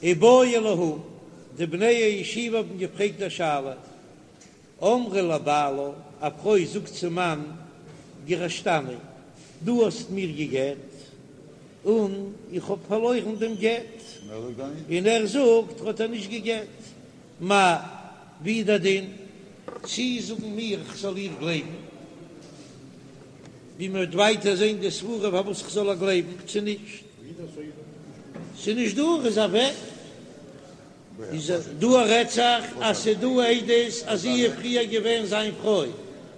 איבעיא להו, די בני הישיבה האבן געפרעגט א שאלה, אמרה לבעלה, א פרוי זאגט צום מאן, גירשתני, דו האסט מיר גע'גט, און איך האב פארלוירן דעם גט, און ער זאגט ער האט איר נישט גע'גט, מהו, ווי איז דער דין? צי זאגן מיר איך זאל איר גלייבן, ווי מען וועט ווייטער זען די סברה פארוואס איך זאל איר גלייבן, צו נישט? ס'איז נישט דא, ער איז אוועק. איז דא רעדט זיך אז ס'איז דא עדות אז זי איז פריער געווען זיין פרוי,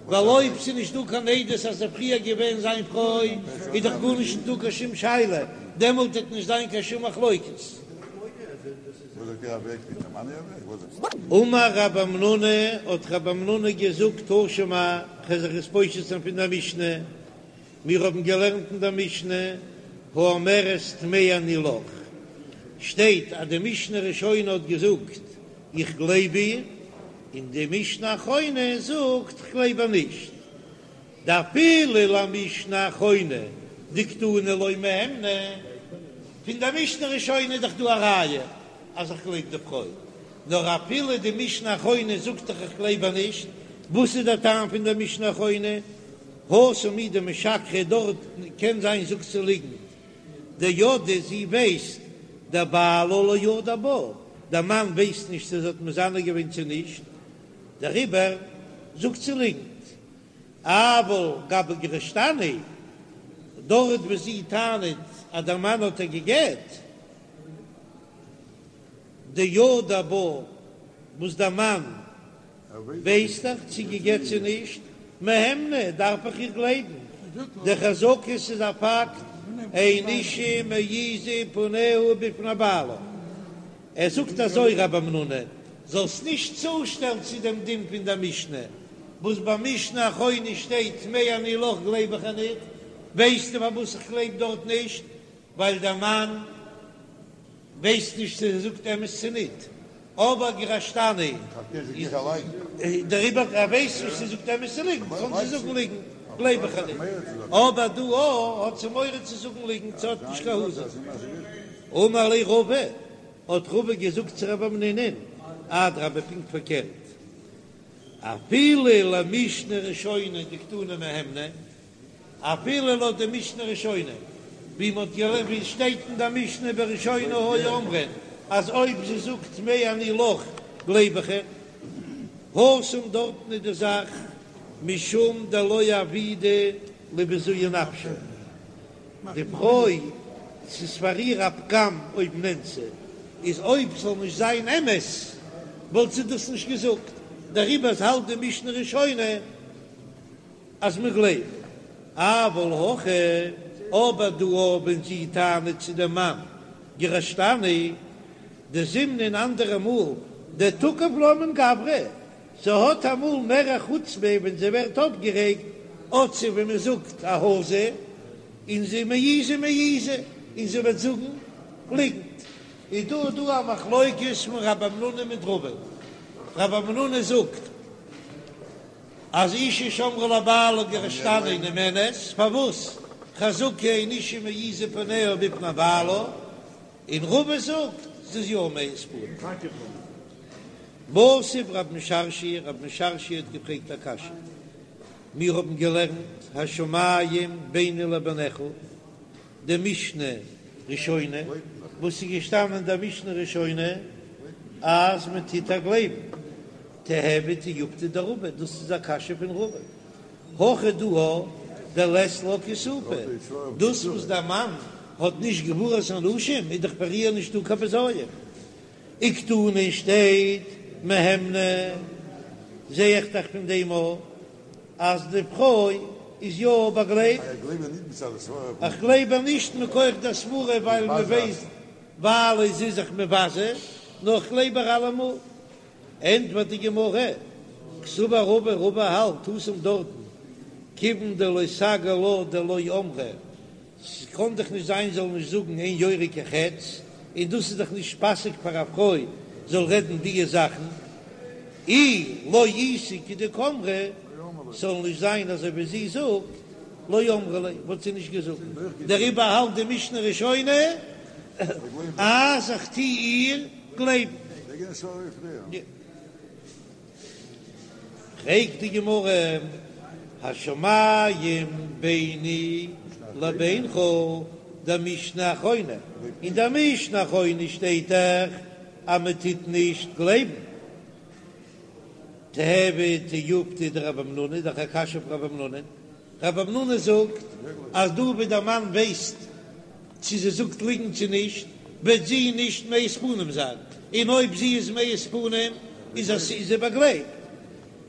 ווייל אויב ס'איז נישט דא קיין עדות אז זי איז פריער געווען זיין פרוי איז דאך גארנישט נישט דא קיין שום שאלה, דעמאלט וועט נישט זיין קיין שום מחלוקת. אמר רב המנונא, האט רב המנונא געזאגט תא שמע, כ'וועל זיך עס פושט זיין פון דער משנה, מיר האבן געלערנט אין דער משנה, האומרת טמאה אני לך, שטייט אז די משנה ראשונה האט געזאגט איך גלייב איר, און די משנה אחרונה זאגט איך גלייב איר נישט, דאפילו למשנה אחרונה דקתני לא מהימנא, פון דער משנה ראשונה איז דאך דא א ראיה אז איך גלייב די פרוי, נאר אפילו די משנה אחרונה זאגט דאך איך גלייב איר נישט, וואס איז דער טעם פון דער משנה אחרונה? התם הוא דמשקרא דארט קען זיין זאגט זי ליגנט, דידעה זי ווייסט דבעלה לא ידע בה, דער מאן ווייסט נישט צו זי האט מזנה געווען צו נישט, דעריבער זאגט זי ליגנט. אבל גבי גירשתני, דארט וואו זי טענה'ט אז דער מאן האט איר גע'גט, דידע בה, וואס דער מאן ווייסט דאך צו גע'גט צו נישט, מהימנא, דארף איך איר גלייבן, דחזקה ס'איז א פאקט, אין אשה מעיזה פניה בפני בעלה. ער זאגט אזוי רב המנונא, זאלסט נישט צושטעלן צו דעם דין פון דער משנה, וואס ביי משנה אחרונה שטייט טמאה אני לך גלייב איך איר ניט, ווייסטו פארוואס איך גלייב דארט נישט? ווייל דער מאן ווייסט נישט צו זי זאגט אמת צו ניט, אבער גירשתני דעריבער ער ווייסט נישט צו זי זאגט אמת צו ליגנט, קען זי זאגן ליגנט גלייב איך איר ניט, אבער דא האט זי מורא צו זאגן ליגנט, זי האט נישט קיין העזה. אמר ליה רבא, האט רבא געזאגט צו רב המנונא'ן, אדרבה פונקט פארקערט, אפילו למשנה ראשונה דקתני מהימנא, אפילו לויט די משנה ראשונה, ווי מ'האט געלערנט ווי עס שטייט אין די משנה בראשונה היו אומרים אז אויב זי זאגט טמאה אני לך גלייב איך איר, התם דארטן איז די זאך משום דלא עבידא לבזויי נפשה, די פרוי ס'איז פאר איר א פגם אויב נאנסה איז אויב ס'זאל נישט זיין אמת וואלט זי דאס נישט געזאגט, דעריבער האלט די משנה ראשונה אז מען גלייבט, אבל הכא, אבער דא ווען זי טענה'ט צו דעם מאן גירשתני, דזימנין אנדערע מאל דתקיף לה מן גברא, זי האט אמאל מער א חוצפה ווען זי ווערט אויפגערעגט, האט זי ווי מען זאגט א העזה, און זי מעיזה מעיזה, און זי וועט זאגן ליגנט. איז דא דא א מחלוקת פון רב המנונא מיט רבא, רב המנונא זאגט אז אשה שאמרה לבעלה גירשתני נאמנת, פארוואס חזקה אין אשה מעיזה פניה בפני בעלה, און רבא זאגט ס'איז יא מעיז פנים. מתיב רב משרשיא, רב משרשיא האט געפרעגט א קשיא, מיר האבן געלערנט השמים ביני לבינך, די משנה ראשונה, וואס איז געשטאנען אין דער משנה ראשונה אז מען טוט איר גלייבן, תיהוי תיובתא דרבא, דאס איז א קשיא פון רבא, הכא דא דלית לה כיסופא, דאס וואס דער מאן האט נישט גבורת אנשים איז דאך פאר איר נישטא קיין בזיון, וקתני שטייט מהימנא, זע איך דאך פון דעם אויך אז די פרוי איז יא באגלייבט, איך גלייב איר נישט מכח דער סברה ווייל מען ווייסט ווייל זי איז זיך מבזה, נאר איך גלייב איר אלעמאל. ענטפערט די גמרא, קסבר רבא, רבא האלט התם דארטן, כיוון דלא סגי לה דלא אמרה, ס'קען דאך נישט זיין זאל נישט זאגן אין יורה כחץ, און דאס איז דאך נישט פאסיג פאר א פרוי זאל רעדן דיע זאכן, אי לא איתא כדקאמרה, ס'זאל נישט זיין אזוי ווי זי זאגט, לא אמרה ליה, וואלט זי נישט געזאגט, דעריבער האלט די משנה ראשונה. אז איך טו איר גלייבן. פרעגט די גמרא, השמים ביני לבינך דמשנה אחרונה, אין דער משנה אחרונה שטייט דאך אז מען טוט נישט גלייבן. תיהוי תיובתא דרב המנונא, איז דאך א קשיא אויף רב המנונא, רב המנונא זאגט אז דא ווי דער מאן ווייסט צו זי זאגט ליגנט צו נישט, וועט זי נישט מעיז פנים זיין, און אויב זי איז מעיז פנים איז זי באגלייבט.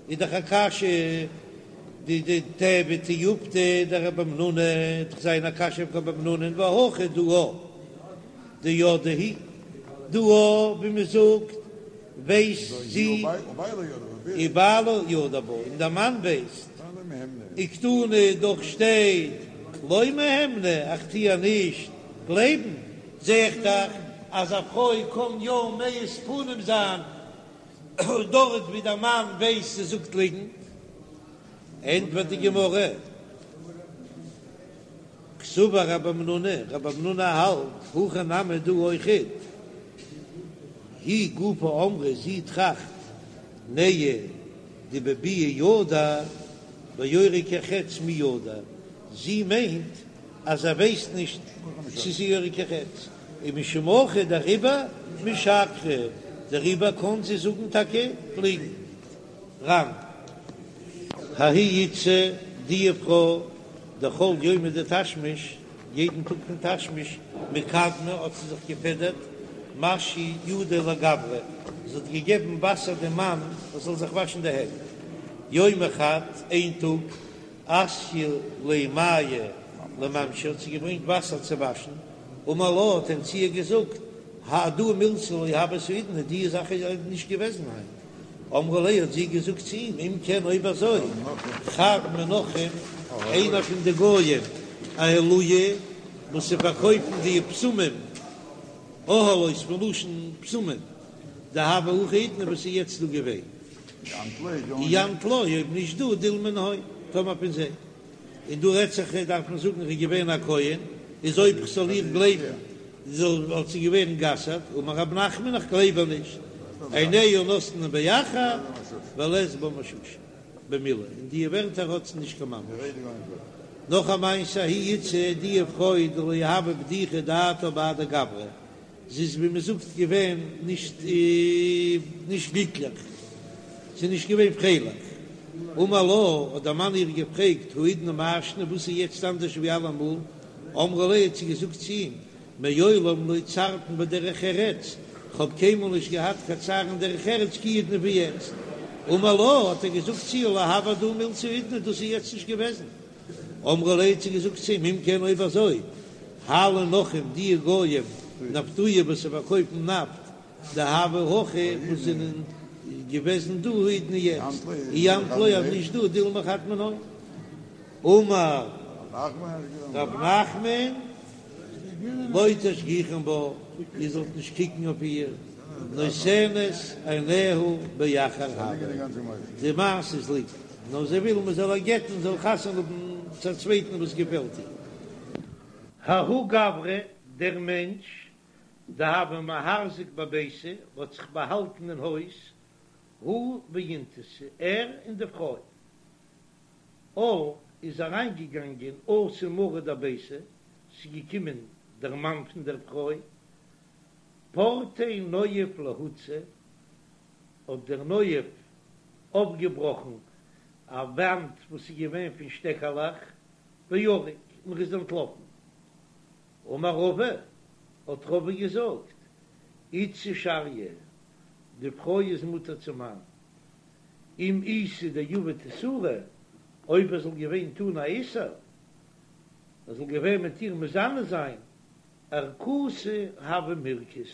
איז דאך א קשיא די די תיהוי תיובתא דרב המנונא, וועט דאך זיין א קשיא אויף רב המנונא והא הכא דא דידעה היא, דא ווי מען זאגט ווייסט זי ובעלה ידע בה, און דער מאן ווייסט, וקתני דאך שטייט לא מהימנא איך טו איר נישט גלייבן, זע איך דאך אז א פרוי קען יא מעיז פנים זיין דארט ווי דער מאן ווייסט זי זאגט ליגנט, ענטפערט די גמרא. קסבר רב המנונא, רב המנונא האלט, הכא נמי דא אויכעט, היא גופא אמרה זי טראכט, נהי דבביאה ידע, ביורה כחץ מי ידע, זי מיינט אז ער ווייסט נישט צו ס'איז יורה כחץ, ומשום הכי דעריבער משקרא, דעריבער קען זי זאגן טאקע ליגנט. ר"ן. ההיא איתתא די פרוי דכל יומא דתשמיש, יעדן טאג פון תשמיש, מקדמא האט זי זיך געפעדערט, משיא ידה לגברא, זי האט געגעבן וואסער דעם מאן ער זאל זיך וואשן די הענט. יומא חד, איין טאג, אתיא ליה מיא למשמא האט זי געברענגט וואסער צו וואשן, אמר לה האט ער צו איר געזאגט, הדא מילתא לא הות האידנא, די זאך איז נישט געוועזן היינט. אמרה ליה האט זי געזאגט צו אים, אם כן אויב אזוי, חד מן נכרים, איינער פון די גויים, אהלויי, וואס זיי פארקויפן די בשמים, אהלות מלשון בשמים, דהוה הכא האידנא וואס איז יעצט דא געווען, אי אנת לא, אויב נישט דו, דילמא מנהון, טאמער פון זיי. און דא רעדט זיך דארף מען זאגן ער איז געווען א כהן, איז אויב כ'זאל איר גלייבן זאל וואלט זי געווען גע'אסר'ט, אמר רב נחמן איך גלייב איר נישט, עיניה נותנין באחר ולית בה מששא במילה, אין די ווערטער האט זי נישט קיין ממש. נאך א מעשה ההיא איתתא די פרוי דלא הוה בדיחא דעתה בהדי גברא, זי איז ווי מען זאגט געווען נישט נישט גליקליך, זי איז נישט געווען פרייליך. אמר לה, האט דער מאן איר געפרעגט, האידנא מאי שנא, וואס איז יעצט אנדערש ווי אלעמאל? אמרה ליה, האט זי געזאגט צו אים, מעולם לא צערתן בדרך ארץ, כ'האב קיינמאל נישט געהאט קיין צער אין דרך ארץ כי האידנא ווי יעצט. אמר לה, האט ער געזאגט צו איר, לא הוה הדא מילתא האידנא, דאס איז יעצט נישט געוועזן. אמרה ליה האט זי געזאגט צו אים, אם כן אויב אזוי, הלו נכרים די גויים נפטויי וואס זיי פארקויפן נפט דהוו הכא וואס זענען געוועזן דא האידנא יעצט, אי אנת לא אז נישט דו דילמא חד מנהון. אמר רב נחמן לא תשגיחון בה, איר זאלט נישט קוקן אויף איר, נותנת עיניה באחר הוה, די מעשה איז ליגנט. נאר זי וויל מען זאל איר גט'ן זאל חתונה האבן צו א צווייטן וואס געפעלט איר. ההוא גברא, דער מענטש, דהוה מהרזיק בביתא, האט זיך באהאלטן אין הויז, הוא ואינתתא, ער און די פרוי. על, איז אריינגעגאנגען אתא מריה דביתא, ס'איז געקומען דער מאן פון דער פרוי, פרטיה נואף להוצא, האט דער נואף אויפגעבראכן א וואנט וואס איז געווען פון שטעקעלעך, וערק, און ער איז אנטלאפן. אמר רבא, האט רבא געזאגט, איתתא שריא, די פרוי איז מותר צום מאן, אם איתא דעביד איסורא, אויב ער זאל געווען טון א איסור, ער זאל געווען מיט איר מזנה זיין, ערקתא הוה מירכז,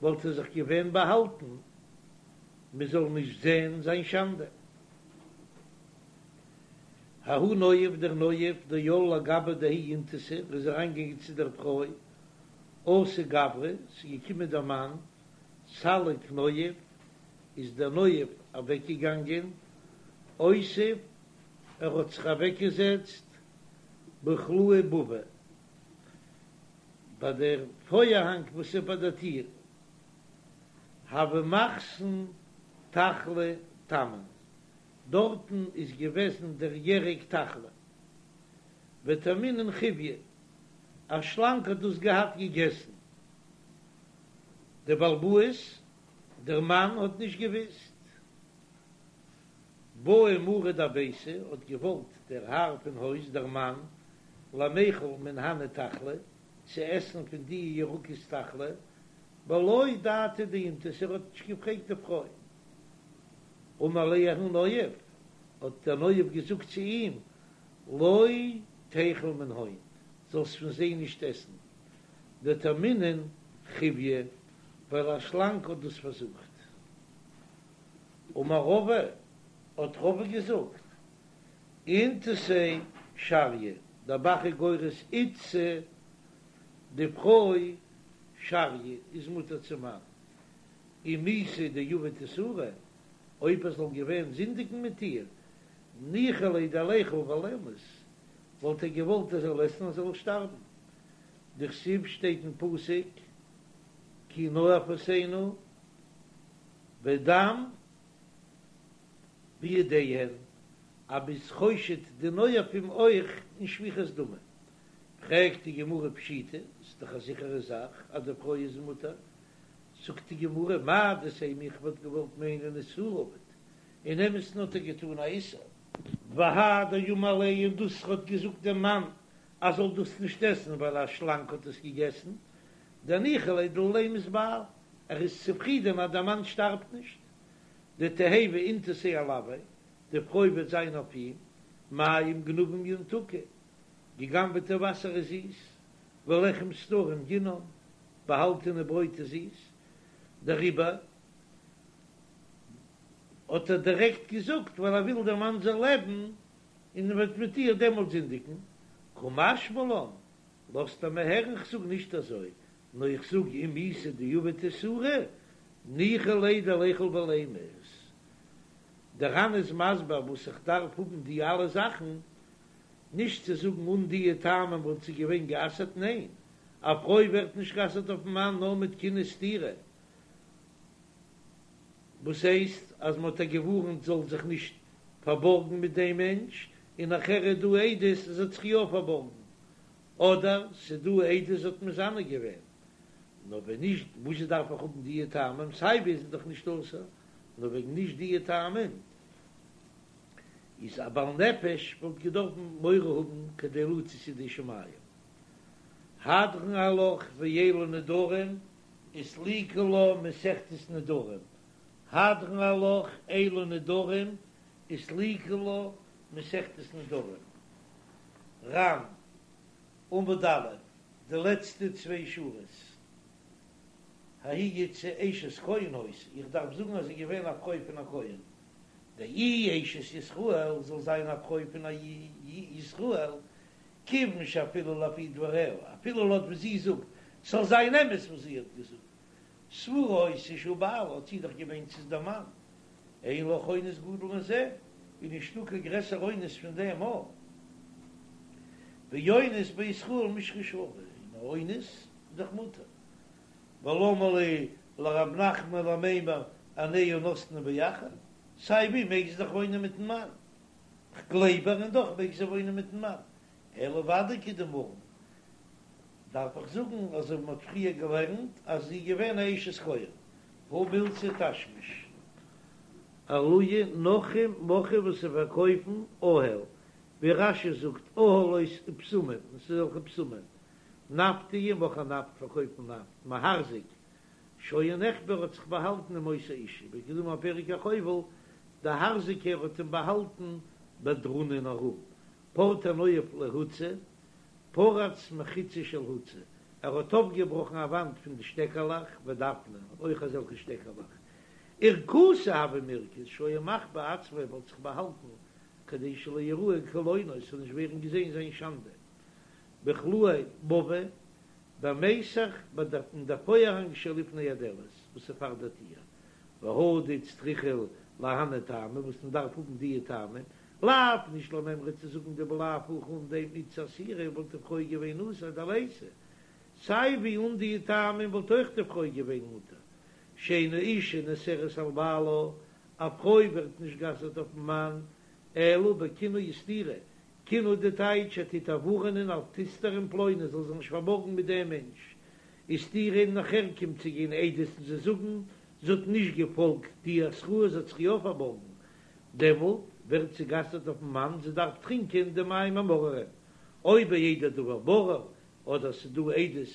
וואלט ער זיך געווען באהאלטן מען זאל נישט זען זיין שאנדע. ההוא נואף דער נואף דעל לגבי דההיא אינתתא ער איז אריינגעגאנגען צו דער פרוי אתא גברא ס'איז געקומען דער מאן סליק נואף איז דער נואף אוועקגעגאנגען אותיב ער האט זיך אוועקגעזעצט בכלאי בבא. ביי דער פארהאנג וואס איז ביי דער טיר, הוה מחתן תחלי תמן, דארטן איז געוועזן דער ירק תחלי, וטעמינן חיויא, א שלאנג האט דאס געהאט געגעסן, דער בעל הבית, דער מאן האט נישט געוויסט. בעא מריה דביתא האט געוואלט דער האר פון הויז, דער מאן, למיכל מן הני תחלי, צו עסן פון די ירקות תחלי, בלא דעתה דאינתתא, ער האט נישט געפרעגט די פרוי. אמר ליה ההוא נואף, האט דער נואף געזאגט צו אים, לא תיכול מנהון, זאלסט פון זיי נישט עסן, דטעמינן חיויא, ווייל א שלאנג האט דאס פארזוכט. אמר רבא, האט רבא געזאגט, אינתתיה שריא, דער ב"ח איז גורס איתתא, די פרוי שריא איז מותר צום מאן, אם איתא דעבד איסורא, אויב ער זאל געווען זינדיגן מיט איר, ניחא ליה דליכול ולימות, וואלט ער געוואלט ער זאל עסן און זאל שטארבן. דכתיב שטייט אין פסוק כי נואפות הנה ודם בידיהן, אז מ'איז חושד די נואפים אויך אין שפיכות דמים. פרעגט די גמרא פשיטא, ס'איז דאך א זיכערע זאך אז די פרוי איז מותר, זאגט די גמרא מהו דתימא איך וואלט געוואלט מיינען איסורא עבד, אין אמת'ן האט ער געטאן א איסור. והא דאמר ליה און דאס האט געזאגט דעם מאן אז זאל דאס נישט עסן ווייל א שלאנג האט עס געגעסן, דניחא ליה דלא לימות בעל, ער איז צופרידען אז דער מאן שטארבט נישט, דתיהוי אינתתיה עילויה, די פרוי וועט זיין אויף אים, מים גנובים ימתקו, געגנבעטע וואסער איז זיס, ולחם סתרים ינעם, באהאלטענע ברויט איז זיס, דעריבער האט ער דירעקט געזאגט ווייל ער וויל דער מאן זאל לעבן און ער וועט מיט איר דעמאלט זינדיגן, קא משמע לן, לאזט ער מיר הערן כ'זאג נישט אזוי, נאר איך זאג אם איתא דעבד איסורא, ניחא ליה דליכול ולימות. דער ר"ן איז מסביר וואס איך דארף האבן די אלע זאכן, נישט צו זאגן אן דיע טעמים וואלט זי געווען גע'אסר'ט, ניין, א פרוי ווערט נישט גע'אסר'ט אויפן מאן נאר מיט קינוי סתירה, וואס הייסט אז מען האט איר געווארנט זאל זיך נישט פארבארגן מיט דעם מענטש, און נאכער איז דא עדות אז זי האט זיך יא פארבארגן, אדער ס'איז דא עדות זי האט מזנה געווען, נאר ווען נישט וואס דארף איך האבן דיע טעמים, סיי ווי איז זי דאך נישט אסור, נאר וועגן נישט דיע טעמים איז א בעל נפש וואלט געדארפן מורא האבן כדי לצאת ידי שמים. הדרן עלך ואלו נדרים וסליקא לה מסכת נדרים, הדרן עלך אלו נדרים וסליקא לה מסכת נדרים. ר"ן, עמוד א', די לעצטע צוויי שורות. ההיא איתתא אשת כהן היתה, איך דארף זאגן אז זי איז געווען א פרוי פון א כהן. דאי אשת ישראל זאל זיין א פרוי פון א ישראל, כיוון שאפילו לפי דבריה, אפילו לויט וואס זי זאגט, ס'זאל זיין אמת וואס זי האט געזאגט, סבורה היתה שהוא בעלה, האט זי דאך געמיינט ס'איז דער מאן, אין לך אונס גדול מזה, איז נישטא קיין גרעסער אונס פון דעם א. ואונס בישראל מישרא שרי, און א אונס איז דאך מותר. ולמה לי לרב נחמן למימר עיניה נתנה באחר, סיי ווי מעג זי דאך וואוינען מיטן מאן, כ'גלייב איר און דאך מעג זי וואוינען מיטן מאן, אלא ודאי כדאמרן, דארף איך זאגן אזוי ווי מ'האט פריער געלערנט אז זי איז געווען א אשת כהן, הא מילתא תשמיש. עלויי נכרים מוכרי וואס זיי פארקויפן אהל, ווי רש"י זאגט אהלות ובשמים, און ס'איז אזעלכע בשמים, נפטי מוכרי נפט פארקויפן נפט, מהרזיק, שהיה נחבא האט זיך באהאלטן עם אותה אשה, וכדאמר פרק החובל, די הארזיקער האט אים באהאלטן בדרונא אין א רום, פרטיה נואף להוצא, פרץ מחיצה של הוצא, ער האט אויפגעבראכן א וואנט פון די שטעקעלעך ודפנא, אויך אזעלכע שטעקעלעך, ערקתא הוה מירכז שהיה מחביא עצמו ער האט זיך באהאלטן כדי שלא יראה קלונו עס זאל נישט ווערן געזען זיין שאנדע, בחלאי מבוי במיסך ביי דער אין דער פארהאנג שלפני הדלת וואס איז פאר דער טיר, והא דאיצטריכא להני טעמי וואס מען דארף האבן דיע טעמים, לאו נישט למימרא צו זאגן דבלאו הכי אן דעם איתתא אסירא וואלט די פרוי געווען אסור דליתא. סיי ווי אן די טעמים וואלט אויך די פרוי געווען מותר, שאין האשה נאסרת על בעלה, א פרוי ווערט נישט גע'אסר'ט אויפן מאן, אלא בקינוי וסתירה, קינוי די טייטש ער טוט איר ווארענען אל תסתרי עם פלוני זאל זיך נישט פארבארגן מיט דעם מענטש, וסתירה און נאכער קומט צו גיין עדות און זיי זאגן זי האט נישט געפאלגט די התראה זי האט זיך יא פארבארגן, דעמאלט ווערט זי גע'אסר'ט אויפן מאן זי דארף טרינקען די מים המאררים, אויב בידי דבר ברור אדער ס'איז דא עדות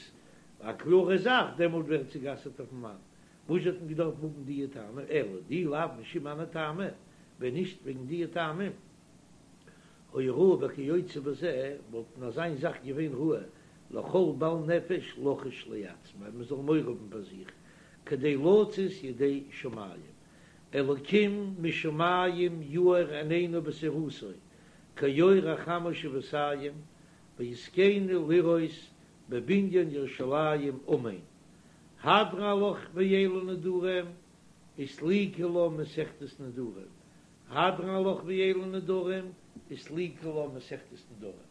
א קלארע זאך דעמאלט ווערט זי גע'אסר'ט אויפן מאן, וואס האט מען געדארפט האבן דיע טעמים אלא דאי לאו משום הני טעמא, ווען נישט וועגן דיע טעמים היה ראוי בכיוצא בזה וואלט אין אזיין זאך געווען ראוי לכל בעל נפש לחוש לעצמו מען זאל מורא האבן פאר זיך כדי לצאת ידי שמים אלקים משמים יאר עינינו בתורתו כאור החמה שבעתים ויזכנו לראות בבניין ירושלים אמן הדרן עלך ואלו נדרים וסליקא לה מסכת נדרים הדרן עלך ואלו נדרים וסליקא לה מסכת נדרים.